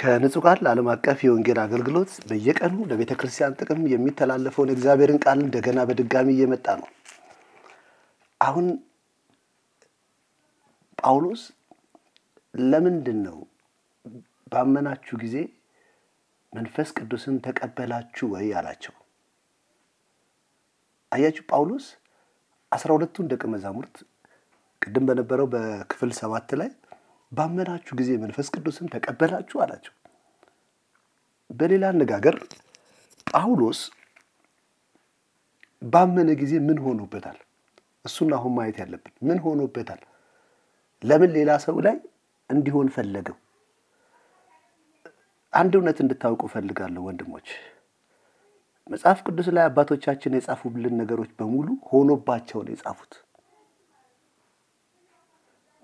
ከንጹህ ቃል ዓለም አቀፍ የወንጌል አገልግሎት በየቀኑ ለቤተክርስቲያን ጥቅም የሚተላለፈውን እግዚአብሔርን ቃል እንደገና በድጋሚ እየመጣ ነው። አሁን ጳውሎስ ለምንድነው ባመናችሁ ጊዜ መንፈስ ቅዱስን ተቀበላችሁ ወይ አላቸው? አያችሁ ጳውሎስ 12ቱን ደቀ መዛሙርት ቅድም በነበረው በክፍል 7 ላይ ባመናችሁ ጊዜ መንፈስ ቅዱስን ተቀበላችሁ አላቸው። በሌላ አነጋገር ጳውሎስ ባመነ ጊዜ ምን ሆኖበታል? እሱን አሁን ማየት ያለብን ምን ሆኖበታል? ለምን ሌላ ሰው ላይ እንዲሆን ፈለገው? አንድ እውነት እንድታውቁ ፈልጋለሁ ወንድሞች። መጽሐፍ ቅዱስ ላይ አባቶቻችን የጻፉልን ነገሮች በሙሉ ሆኖባቸው ነው የጻፉት።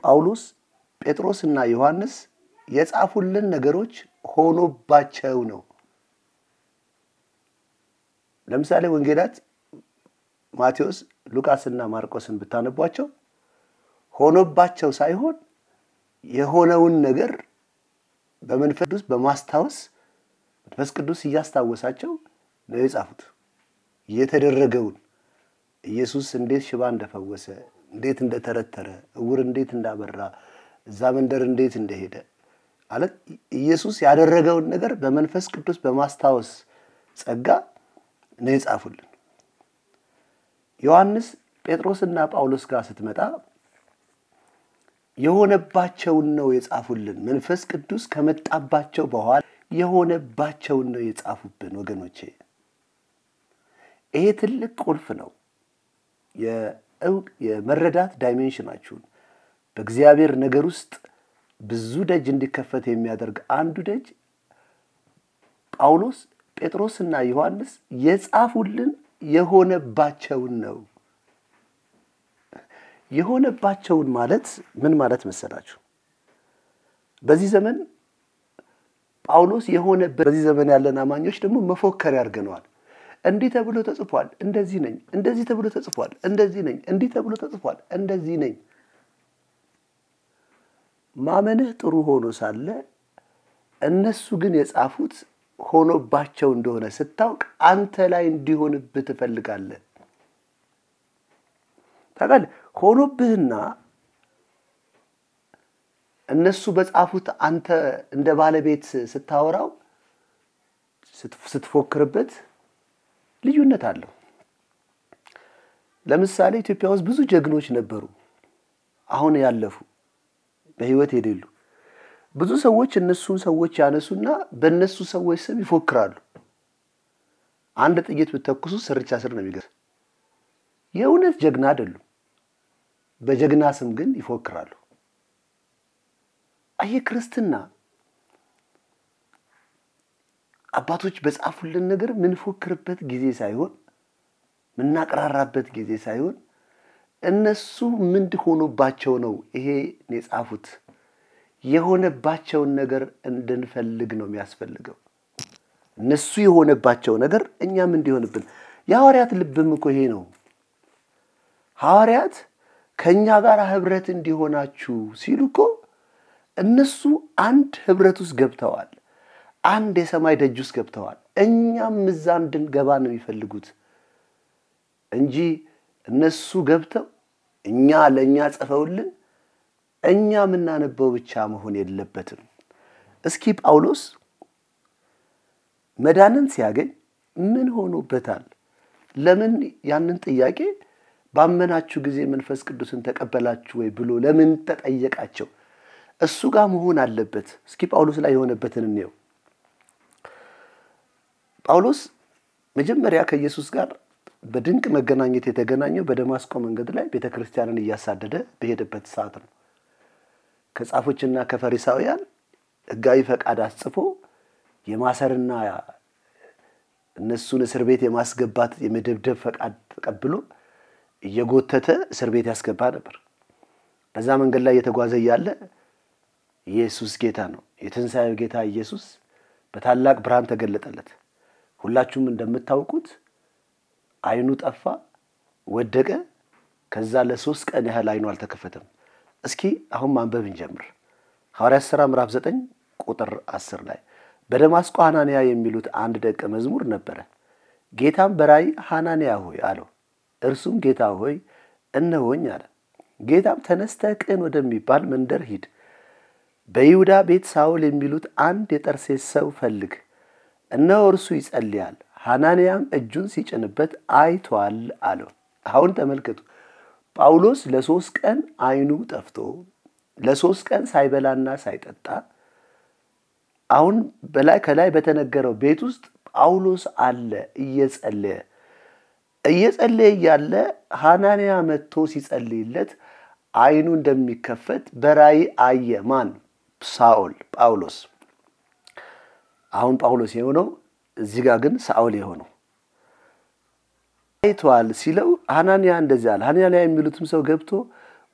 ጳውሎስ ጴጥሮስና ዮሐንስ የጻፉልን ነገሮች ሆኖባቸው ነው። ለምሳሌ ወንጌላት ማቴዎስ፣ ሉቃስና ማርቆስን ብታነቧቸው ሆኖባቸው ሳይሆን የሆነውን ነገር በመንፈስ ቅዱስ በማስታወስ መንፈስ ቅዱስ እያስታወሳቸው ነው የጻፉት። የተደረገውን ኢየሱስ እንዴት ሽባ እንደፈወሰ፣ እንዴት እንደተረተረ፣ እውር እንዴት እንዳበራ፣ እዛ መንደር እንዴት እንደሄደ አለ ኢየሱስ ያደረገውን ነገር በመንፈስ ቅዱስ በማስታወስ ጸጋ ነው የጻፉልን። ዮሐንስ ጴጥሮስና ጳውሎስ ጋር ስትመጣ የሆነባቸውን ነው የጻፉልን። መንፈስ ቅዱስ ከመጣባቸው በኋላ የሆነባቸውን ነው የጻፉብን ወገኖቼ። ይሄ ትልቅ ቁልፍ ነው። የመረዳት ዳይሜንሽናችሁን በእግዚአብሔር ነገር ውስጥ ብዙ ደጅ እንዲከፈት የሚያደርግ አንዱ ደጅ ጳውሎስ ጴጥሮስና ዮሐንስ የጻፉልን የሆነባቸውን ነው። የሆነባቸውን ማለት ምን ማለት መሰላችሁ? በዚህ ዘመን ጳውሎስ በዚህ ዘመን ያለን አማኞች ደግሞ መፎከር ያርገናል። እንዲህ ተብሎ ተጽፏል፣ እንደዚህ ነኝ፣ እንደዚህ ተብሎ ተጽፏል፣ እንደዚህ ነኝ፣ እንዲህ ተብሎ ተጽፏል፣ እንደዚህ ነኝ። ማመንህ ጥሩ ሆኖ ሳለ እነሱ ግን የጻፉት ሆኖባቸው እንደሆነ ስታውቅ አንተ ላይ እንዲሆንብህ ትፈልጋለህ። ታውቃለህ? ሆኖብህና እነሱ በጻፉት አንተ እንደ ባለቤት ስታወራው ስትፎክርበት ልዩነት አለው። ለምሳሌ ኢትዮጵያ ውስጥ ብዙ ጀግኖች ነበሩ፣ አሁን ያለፉ በህይወት የሌሉ። ብዙ ሰዎች እነሱን ሰዎች ያነሱና በእነሱ ሰዎች ስም ይፎክራሉ። አንድ ጥይት ብትተኩሱ ስርቻ ስር ነው የሚገርም። የእውነት ጀግና አይደሉም፣ በጀግና ስም ግን ይፎክራሉ። አየ ክርስትና አባቶች በጻፉልን ነገር ምን ፎክርበት ጊዜ ሳይሆን ምን ናቀራራበት ጊዜ ሳይሆን እነሱ ምን ሆኖባቸው ነው ይሄ የጻፉት። የሆነባቸውን ነገር እንድንፈልግ ነው የሚያስፈልገው። እነሱ የሆነባቸው ነገር እኛም እንዲሆንብን። የሐዋርያት ልብም እኮ ይሄ ነው። ሐዋርያት ከኛ ጋር ህብረት እንዲሆናችሁ ሲሉ እኮ እነሱ አንድ ህብረት ውስጥ ገብተዋል። አንድ የሰማይ ደጅ ውስጥ ገብተዋል። እኛም እዛ እንድንገባ ነው የሚፈልጉት እንጂ እነሱ ገብተው እኛ ለኛ ጽፈውልን እኛ ምናነበው ብቻ መሆን የለበትም። እስኪ ጳውሎስ መዳንን ሲያገኝ ምን ሆኖበታል? ለምን ያንን ጥያቄ ባመናችሁ ጊዜ መንፈስ ቅዱስን ተቀበላችሁ ወይ ብሎ ለምን ተጠየቃቸው? እሱ ጋር መሆን አለበት። እስኪ ጳውሎስ ላይ የሆነበትን እንየው። ጳውሎስ መጀመሪያ ከኢየሱስ ጋር በድንቅ መገናኘት የተገናኘው በደማስቆ መንገድ ላይ ቤተክርስቲያንን እያሳደደ በሄደበት ሰዓት ነው። ከጻፎችና ከፈሪሳውያን ሕጋዊ ፈቃድ አስጽፎ የማሰርና እነሱን እስር ቤት የማስገባት የመደብደብ ፈቃድ ተቀብሎ እየጎተተ እስር ቤት ያስገባ ነበር። በዛ መንገድ ላይ የተጓዘ ያለ ኢየሱስ ጌታ ነው። የትንሣኤው ጌታ ኢየሱስ በታላቅ ብርሃን ተገለጠለት። ሁላችሁም እንደምታውቁት አይኑ ጠፋ፣ ወደቀ። ከዛ ለ3 ቀን ያህል አይኑ አልተከፈተም። እስኪ አሁን ማንበብ እንጀምር። ሐዋርያት ሥራ ምዕራፍ 9 ቁጥር 10 ላይ በደማስቆ ሐናንያ የሚሉት አንድ ደቀ መዝሙር ነበረ። ጌታም በራእይ ሐናንያ ሆይ አለው። እርሱም ጌታ ሆይ እነሆኝ አለ። ጌታም ተነስተህ ቅን ወደሚባል መንደር ሂድ፣ በይሁዳ ቤት ሳውል የሚሉት አንድ የጠርሴስ ሰው ፈልግ፣ እነሆ እርሱ ይጸልያል፣ ሐናንያም እጁን ሲጭንበት አይቷል አለው። አሁን ተመልከቱ፣ ጳውሎስ ለ3 ቀን አይኑ ጠፍቶ ለ3 ቀን ሳይበላና ሳይጠጣ አሁን ከላይ በተነገረው ቤት ውስጥ ጳውሎስ አለ እየጸለየ ያለ ሐናንያ መጥቶ ሲጸልይለት አይኑ እንደሚከፈት በራእይ አየ። ማን? ሳኦል፣ ጳውሎስ። አሁን ጳውሎስ የሆነው እዚህ ጋር ግን ሳኦል የሆነው አይቷል ሲለው ሐናንያ እንደዚህ አለ። ሐናንያ የሚሉትም ሰው ገብቶ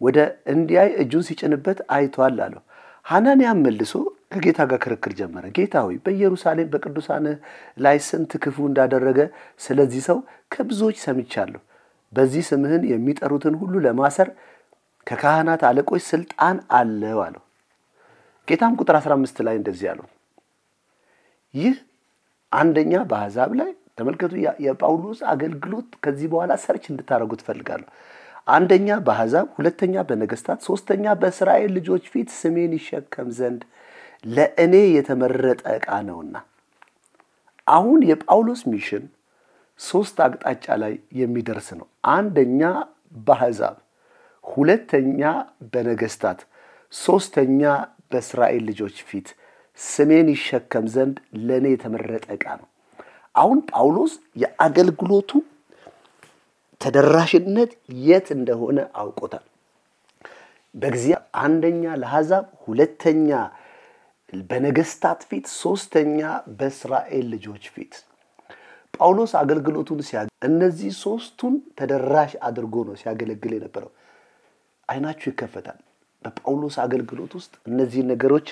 ወደ እንዲያይ እጁን ሲጭንበት አይቷል አለው። ሐናንያም መልሶ ከጌታ ጋር ክርክር ጀመረ። ጌታ ሆይ በኢየሩሳሌም በቅዱሳን ላይ ስንት ክፉ እንዳደረገ ስለዚህ ሰው ከብዙዎች ሰምቻለሁ። በዚህ ስምህን የሚጠሩትን ሁሉ ለማሰር ከካህናት አለቆች ስልጣን አለው አለው። ጌታም ቁጥር 15 ላይ እንደዚህ አለው። ይህ አንደኛ በአሕዛብ ላይ ተመልከቱ፣ የጳውሎስ አገልግሎት ከዚህ በኋላ ሰርች እንድታደርጉ ትፈልጋለሁ። አንደኛ በአሕዛብ፣ ሁለተኛ በነገስታት፣ ሶስተኛ በእስራኤል ልጆች ፊት ስሜን ይሸከም ዘንድ ለእኔ የተመረጠ ዕቃ ነውና። አሁን የጳውሎስ ሚሽን 3 አቅጣጫ ላይ የሚደርስ ነው። አንደኛ በአሕዛብ፣ ሁለተኛ በነገስታት፣ ሶስተኛ በእስራኤል ልጆች ፊት ስሜን ይሸከም ዘንድ ለእኔ የተመረጠ ዕቃ ነው። አሁን ጳውሎስ የአገልግሎቱ ተደራሽነት የት እንደሆነ አውቆታል። በእግዚአብሔር አንደኛ ለአሕዛብ፣ ሁለተኛ በነገስታት ፊት፣ ሶስተኛ በእስራኤል ልጆች ፊት። ጳውሎስ አገልግሎቱን እነዚህ 3ቱን ተደራሽ አድርጎ ነው ሲያገለግል የነበረው። አይናችሁ ይከፈታል። በጳውሎስ አገልግሎት ውስጥ እነዚህ ነገሮች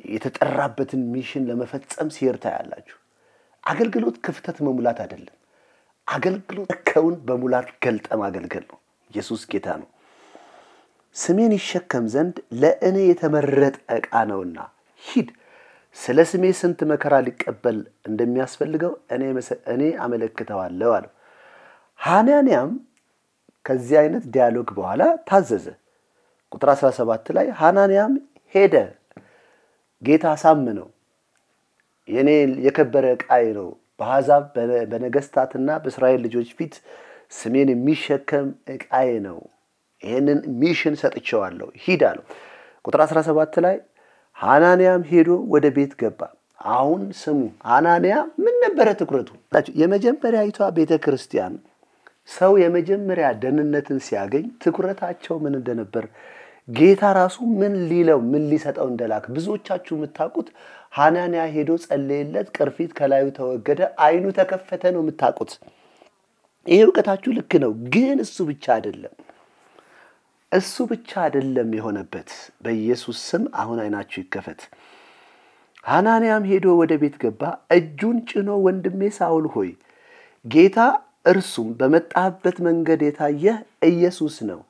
የተጠራበትን ሚሽን ለመፈጸም ሲርታ ያላችሁ። አገልግሎት ክፍተት መሙላት አይደለም። አገልግሎት ከውን በሙላት ገልጠ ማገልገል ነው። ኢየሱስ ጌታ ነው። ስሜን ይሸከም ዘንድ ለእኔ የተመረጠ ዕቃ ነውና ሂድ፣ ስለ ስሜ ስንት መከራ ሊቀበል እንደሚያስፈልገው እኔ አመለክተዋለሁ አለው። ሐናንያም ከዚህ አይነት ዲያሎግ በኋላ ታዘዘ። ቁጥር 17 ላይ ሐናንያም ሄደ፣ ጌታ አሳመነው፣ የኔ የከበረ ዕቃዬ ነው፣ በአሕዛብ በነገስታትና በእስራኤል ልጆች ፊት ስሜን የሚሸከም ዕቃዬ ነው፣ ይህንን ሚሽን ሰጥቼዋለሁ፣ ሂድ አለው። ቁጥር 17 ላይ ሐናንያም ሄዶ ወደ ቤት ገባ። አሁን ስሙ፣ ሐናንያ ምን ነበረ ትኩረቱ? የመጀመሪያዊቷ ቤተ ክርስቲያን ሰው የመጀመሪያ ደህንነትን ሲያገኝ ትኩረታቸው ምን እንደነበር ጌታ ራሱ ምን ሊሰጠው እንደላክ ብዙዎቻችሁ የምታውቁት ሐናንያ ሄዶ ጸለየለት፣ ቅርፊት ከላዩ ተወገደ፣ አይኑ ተከፈተ ነው የምታውቁት። ይሄ እውቀታችሁ ልክ ነው። ግን እሱ ብቻ አይደለም የሆነበት። በኢየሱስ ስም አሁን አይናችሁ ይከፈት። ሐናንያም ሄዶ ወደ ቤት ገባ፣ እጁን ጭኖ ወንድሜ ሳውል ሆይ ጌታ እርሱም በመጣበት መንገድ የታየህ ኢየሱስ ነው፣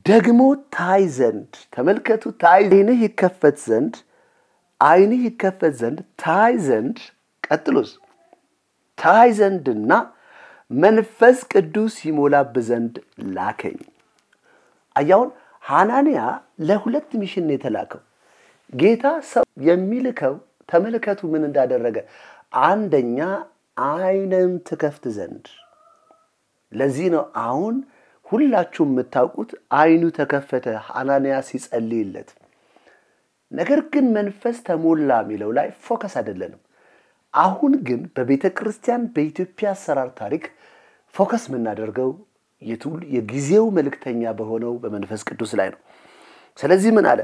ደግሞ ታይ ዘንድ ተመልከቱ፣ አይንህ ይከፈት ዘንድ ታይ ዘንድ ቀጥሎስ ታይ ዘንድና መንፈስ ቅዱስ ይሞላብ ዘንድ ላከኝ። አያውን ሐናንያ ለሁለት ሚሽን የተላከው ጌታ ሰው የሚልከው ተመልከቱ ምን እንዳደረገ። አንደኛ አይንን ትከፍት ዘንድ። ለዚህ ነው አሁን ሁላችሁም የምታውቁት አይኑ ተከፈተ ሐናንያ ሲጸልይለት። ነገር ግን መንፈስ ተሞላ የሚለው ላይ ፎከስ አይደለንም። አሁን ግን በቤተ ክርስቲያን በኢትዮጵያ አሰራር ታሪክ ፎከስ የምናደርገው የጊዜው መልእክተኛ በሆነው በመንፈስ ቅዱስ ላይ ነው። ስለዚህ ምን አለ?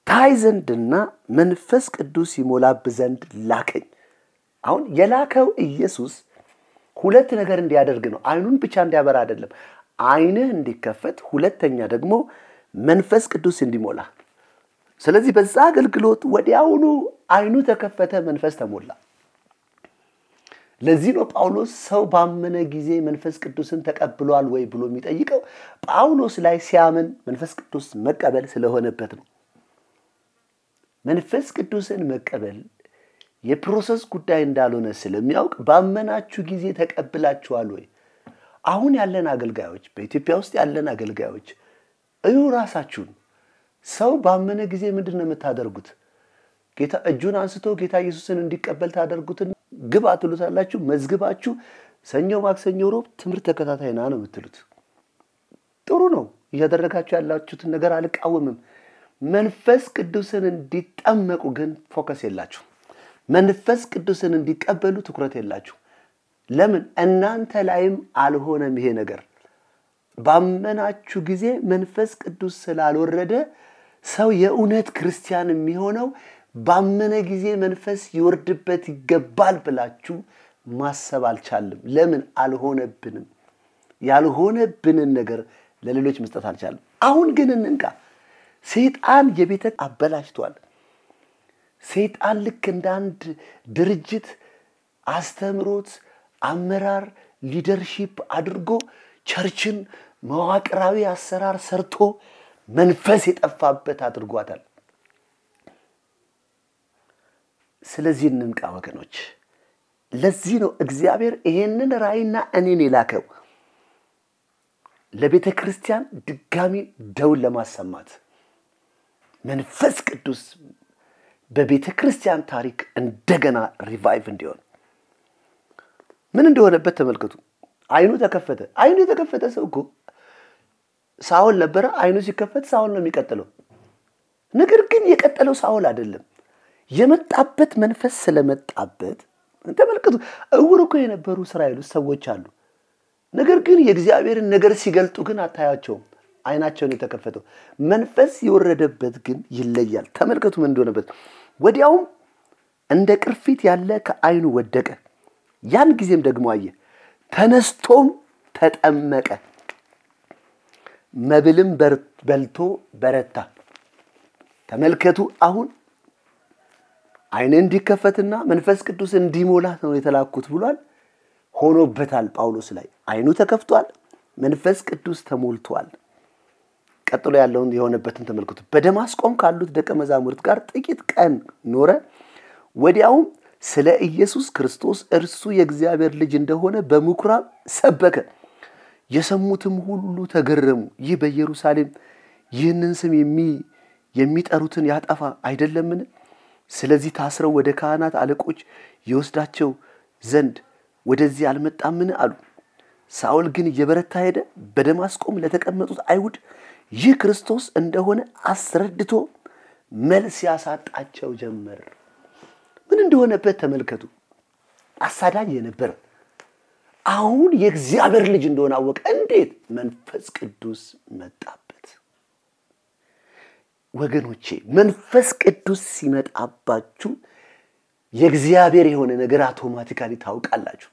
ታይ ዘንድና መንፈስ ቅዱስ ይሞላብ ዘንድ ላከኝ። አሁን የላከው ኢየሱስ ሁለት ነገር እንዲያደርግ ነው። አይኑን ብቻ እንዲያበራ አይደለም፣ አይንህ እንዲከፈት፣ ሁለተኛ ደግሞ መንፈስ ቅዱስ እንዲሞላ። ስለዚህ በዛ አገልግሎት ወዲያውኑ አይኑ ተከፈተ፣ መንፈስ ተሞላ። ለዚህ ነው ጳውሎስ ሰው ባመነ ጊዜ መንፈስ ቅዱስን ተቀብሏል ወይ ብሎ የሚጠይቀው ጳውሎስ ላይ ሲያምን መንፈስ ቅዱስ መቀበል ስለሆነበት ነው። መንፈስ ቅዱስን መቀበል የፕሮሰስ ጉዳይ እንዳልሆነ ስለሚያውቅ ባመናችሁ ጊዜ ተቀብላችኋል ወይ? አሁን ያለን አገልጋዮች በኢትዮጵያ ውስጥ ያለን አገልጋዮች እዩ ራሳችሁን። ሰው ባመነ ጊዜ ምንድነው የምታደርጉት? ጌታ እጁን አንስቶ ጌታ ኢየሱስን እንዲቀበል ታደርጉትን ግባ ትሉታላችሁ። መዝግባችሁ ሰኞ ማክሰኞ ሮብ ትምህርት ተከታታይና ነው የምትሉት። ጥሩ ነው እያደረጋችሁ ያላችሁትን ነገር አልቃወምም። መንፈስ ቅዱስን እንዲጠመቁ ግን ፎከስ የላችሁ። መንፈስ ቅዱስን እንዲቀበሉ ትኩረት የላችሁ። ለምን? እናንተ ላይም አልሆነም ይሄ ነገር። ባመናችሁ ጊዜ መንፈስ ቅዱስ ስላልወረደ ሰው የእውነት ክርስቲያን የሚሆነው ባመነ ጊዜ መንፈስ ይወርድበት ይገባል ብላችሁ ማሰብ አልቻለም። ለምን? አልሆነብንም። ያልሆነብንን ነገር ለሌሎች መስጠት አልቻለም። አሁን ግን እንንቃ። ሰይጣን የቤተ አበላሽቷል። ሰይጣን ልክ እንደ አንድ ድርጅት አስተምሮት አመራር ሊደርሺፕ አድርጎ ቸርችን መዋቅራዊ አሰራር ሰርቶ መንፈስ የጠፋበት አድርጓታል። ስለዚህ እንንቃ ወገኖች። ለዚህ ነው እግዚአብሔር ይሄንን ራእይና እኔን የላከው ለቤተ ክርስቲያን ድጋሚ ደውል ለማሰማት። መንፈስ ቅዱስ በቤተ ክርስቲያን ታሪክ እንደገና ሪቫይቭ እንዲሆን ምን እንደሆነበት ተመልከቱ። አይኑ ተከፈተ። አይኑ የተከፈተ ሰው እኮ ሳውል ነበረ። አይኑ ሲከፈት ሳውል ነው የሚቀጥለው። ነገር ግን የቀጠለው ሳውል አይደለም። የመጣበት መንፈስ ስለመጣበት ተመልከቱ። እውር እኮ የነበሩ እስራኤል ሰዎች አሉ። ነገር ግን የእግዚአብሔርን ነገር ሲገልጡ ግን አታያቸውም። አይናቸውን የተከፈተው መንፈስ የወረደበት ግን ይለያል። ተመልከቱ ምን እንደሆነበት። ወዲያውም እንደ ቅርፊት ያለ ከአይኑ ወደቀ። ያን ጊዜም ደግሞ አየ። ተነስቶም ተጠመቀ። መብልም በልቶ በረታ። ተመልከቱ አሁን አይን እንዲከፈትና መንፈስ ቅዱስ እንዲሞላት ነው የተላኩት ብሏል። ሆኖበታል። ጳውሎስ ላይ አይኑ ተከፍቷል፣ መንፈስ ቅዱስ ተሞልቷል። ቀጥሎ ያለውን የሆነበትን ተመልከቱ። በደማስቆም ካሉት ደቀ መዛሙርት ጋር ጥቂት ቀን ኖረ። ወዲያውም ስለ ኢየሱስ ክርስቶስ እርሱ የእግዚአብሔር ልጅ እንደሆነ በምኩራብ ሰበከ። የሰሙትም ሁሉ ተገረሙ። ይህ በኢየሩሳሌም ይህንን ስም የሚጠሩትን ያጠፋ አይደለምን? ስለዚህ ታስረው ወደ ካህናት አለቆች ይወስዳቸው ዘንድ ወደዚህ አልመጣምን አሉ። ሳውል ግን እየበረታ ሄደ። በደማስቆም ለተቀመጡት አይሁድ ይህ ክርስቶስ እንደሆነ አስረድቶ መልስ ያሳጣቸው ጀመር። ምን እንደሆነበት ተመልከቱ። አሳዳጅ የነበረ አሁን የእግዚአብሔር ልጅ እንደሆነ አወቀ። እንዴት? መንፈስ ቅዱስ መጣበት። ወገኖቼ መንፈስ ቅዱስ ሲመጣባችሁ የእግዚአብሔር የሆነ ነገር አውቶማቲካሊ ታውቃላችሁ።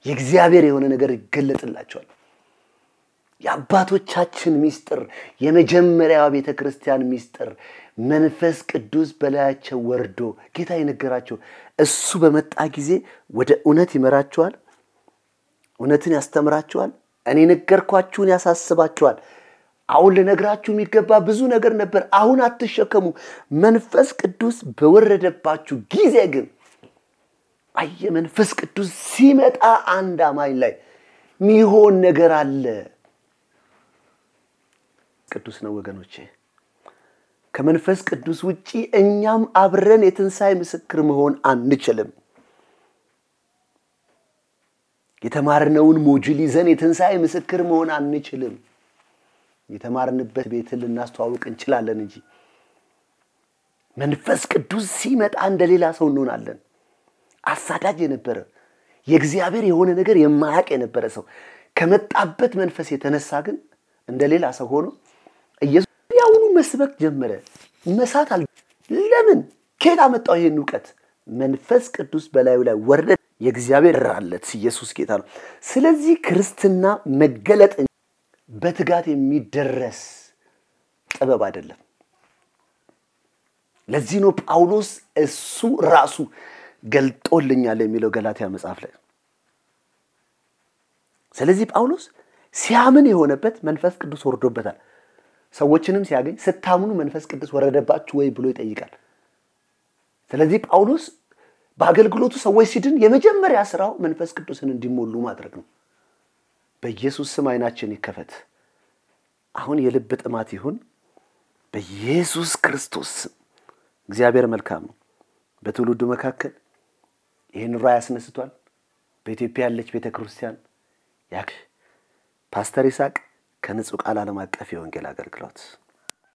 የእግዚአብሔር የሆነ ነገር ይገለጥላችኋል። የአባቶቻችን ሚስጥር፣ የመጀመሪያው ቤተ ክርስቲያን ሚስጥር መንፈስ ቅዱስ በላያቸው ወርዶ ጌታ የነገራቸው እሱ በመጣ ጊዜ ወደ እውነት ይመራቸዋል፣ እውነትን ያስተምራቸዋል፣ እኔ ነገርኳችሁን ያሳስባቸዋል። አሁን ለነግራችሁ የሚገባ ብዙ ነገር ነበር፣ አሁን አትሸከሙ። መንፈስ ቅዱስ በወረደባችሁ ጊዜ ግን መንፈስ ቅዱስ ሲመጣ አንድ አማኝ ላይ ሚሆን ነገር አለ። ቅዱስ ነው ወገኖቼ። ከመንፈስ ቅዱስ ውጪ እኛም አብረን የትንሣኤ ምስክር መሆን አንችልም። የተማርነውን ሞጁል ይዘን የትንሣኤ ምስክር መሆን አንችልም። የተማርንበት ቤት ልናስተዋውቅ እንችላለን እንጂ መንፈስ ቅዱስ ሲመጣ እንደሌላ ሰው እንሆናለን። አሳዳጅ የነበረ የእግዚአብሔር የሆነ ነገር የማያውቅ የነበረ ሰው ከመጣበት መንፈስ የተነሳ ግን እንደሌላ ሰው ሆኖ ኢየሱስ ያውኑ መስበክ ጀመረ። መሳት ለምን? ከየት አመጣው ይሄን ዕውቀት? መንፈስ ቅዱስ በላዩ ላይ ወረደ። የእግዚአብሔር ራለት ኢየሱስ ጌታ ነው። ስለዚህ ክርስትና መገለጥ በትጋት የሚደረስ ጥበብ አይደለም። ለዚህ ነው ጳውሎስ እሱ ራሱ ገልጦልኛል የሚለው ገላትያ መጽሐፍ ላይ። ስለዚህ ጳውሎስ ሲያምን የሆነበት መንፈስ ቅዱስ ወርዶበታል። ሰዎችንም ሲያገኝ ስታምኑ መንፈስ ቅዱስ ወረደባችሁ ወይ ብሎ ይጠይቃል። ስለዚህ ጳውሎስ በአገልግሎቱ ሰዎች ሲድን የመጀመሪያ ስራው መንፈስ ቅዱስን እንዲሞሉ ማድረግ ነው። በኢየሱስ ስም አይናችን ይከፈት። አሁን የልብ ጥማት ይሁን በኢየሱስ ክርስቶስ ስም። እግዚአብሔር መልካም ነው። በትውልዱ መካከል ይህን ራእይ ያስነስቷል። በኢትዮጵያ ያለች ቤተክርስቲያን ፓስተር ይስሐቅ ከንጹህ ቃል ዓለም አቀፍ የወንጌል አገልግሎት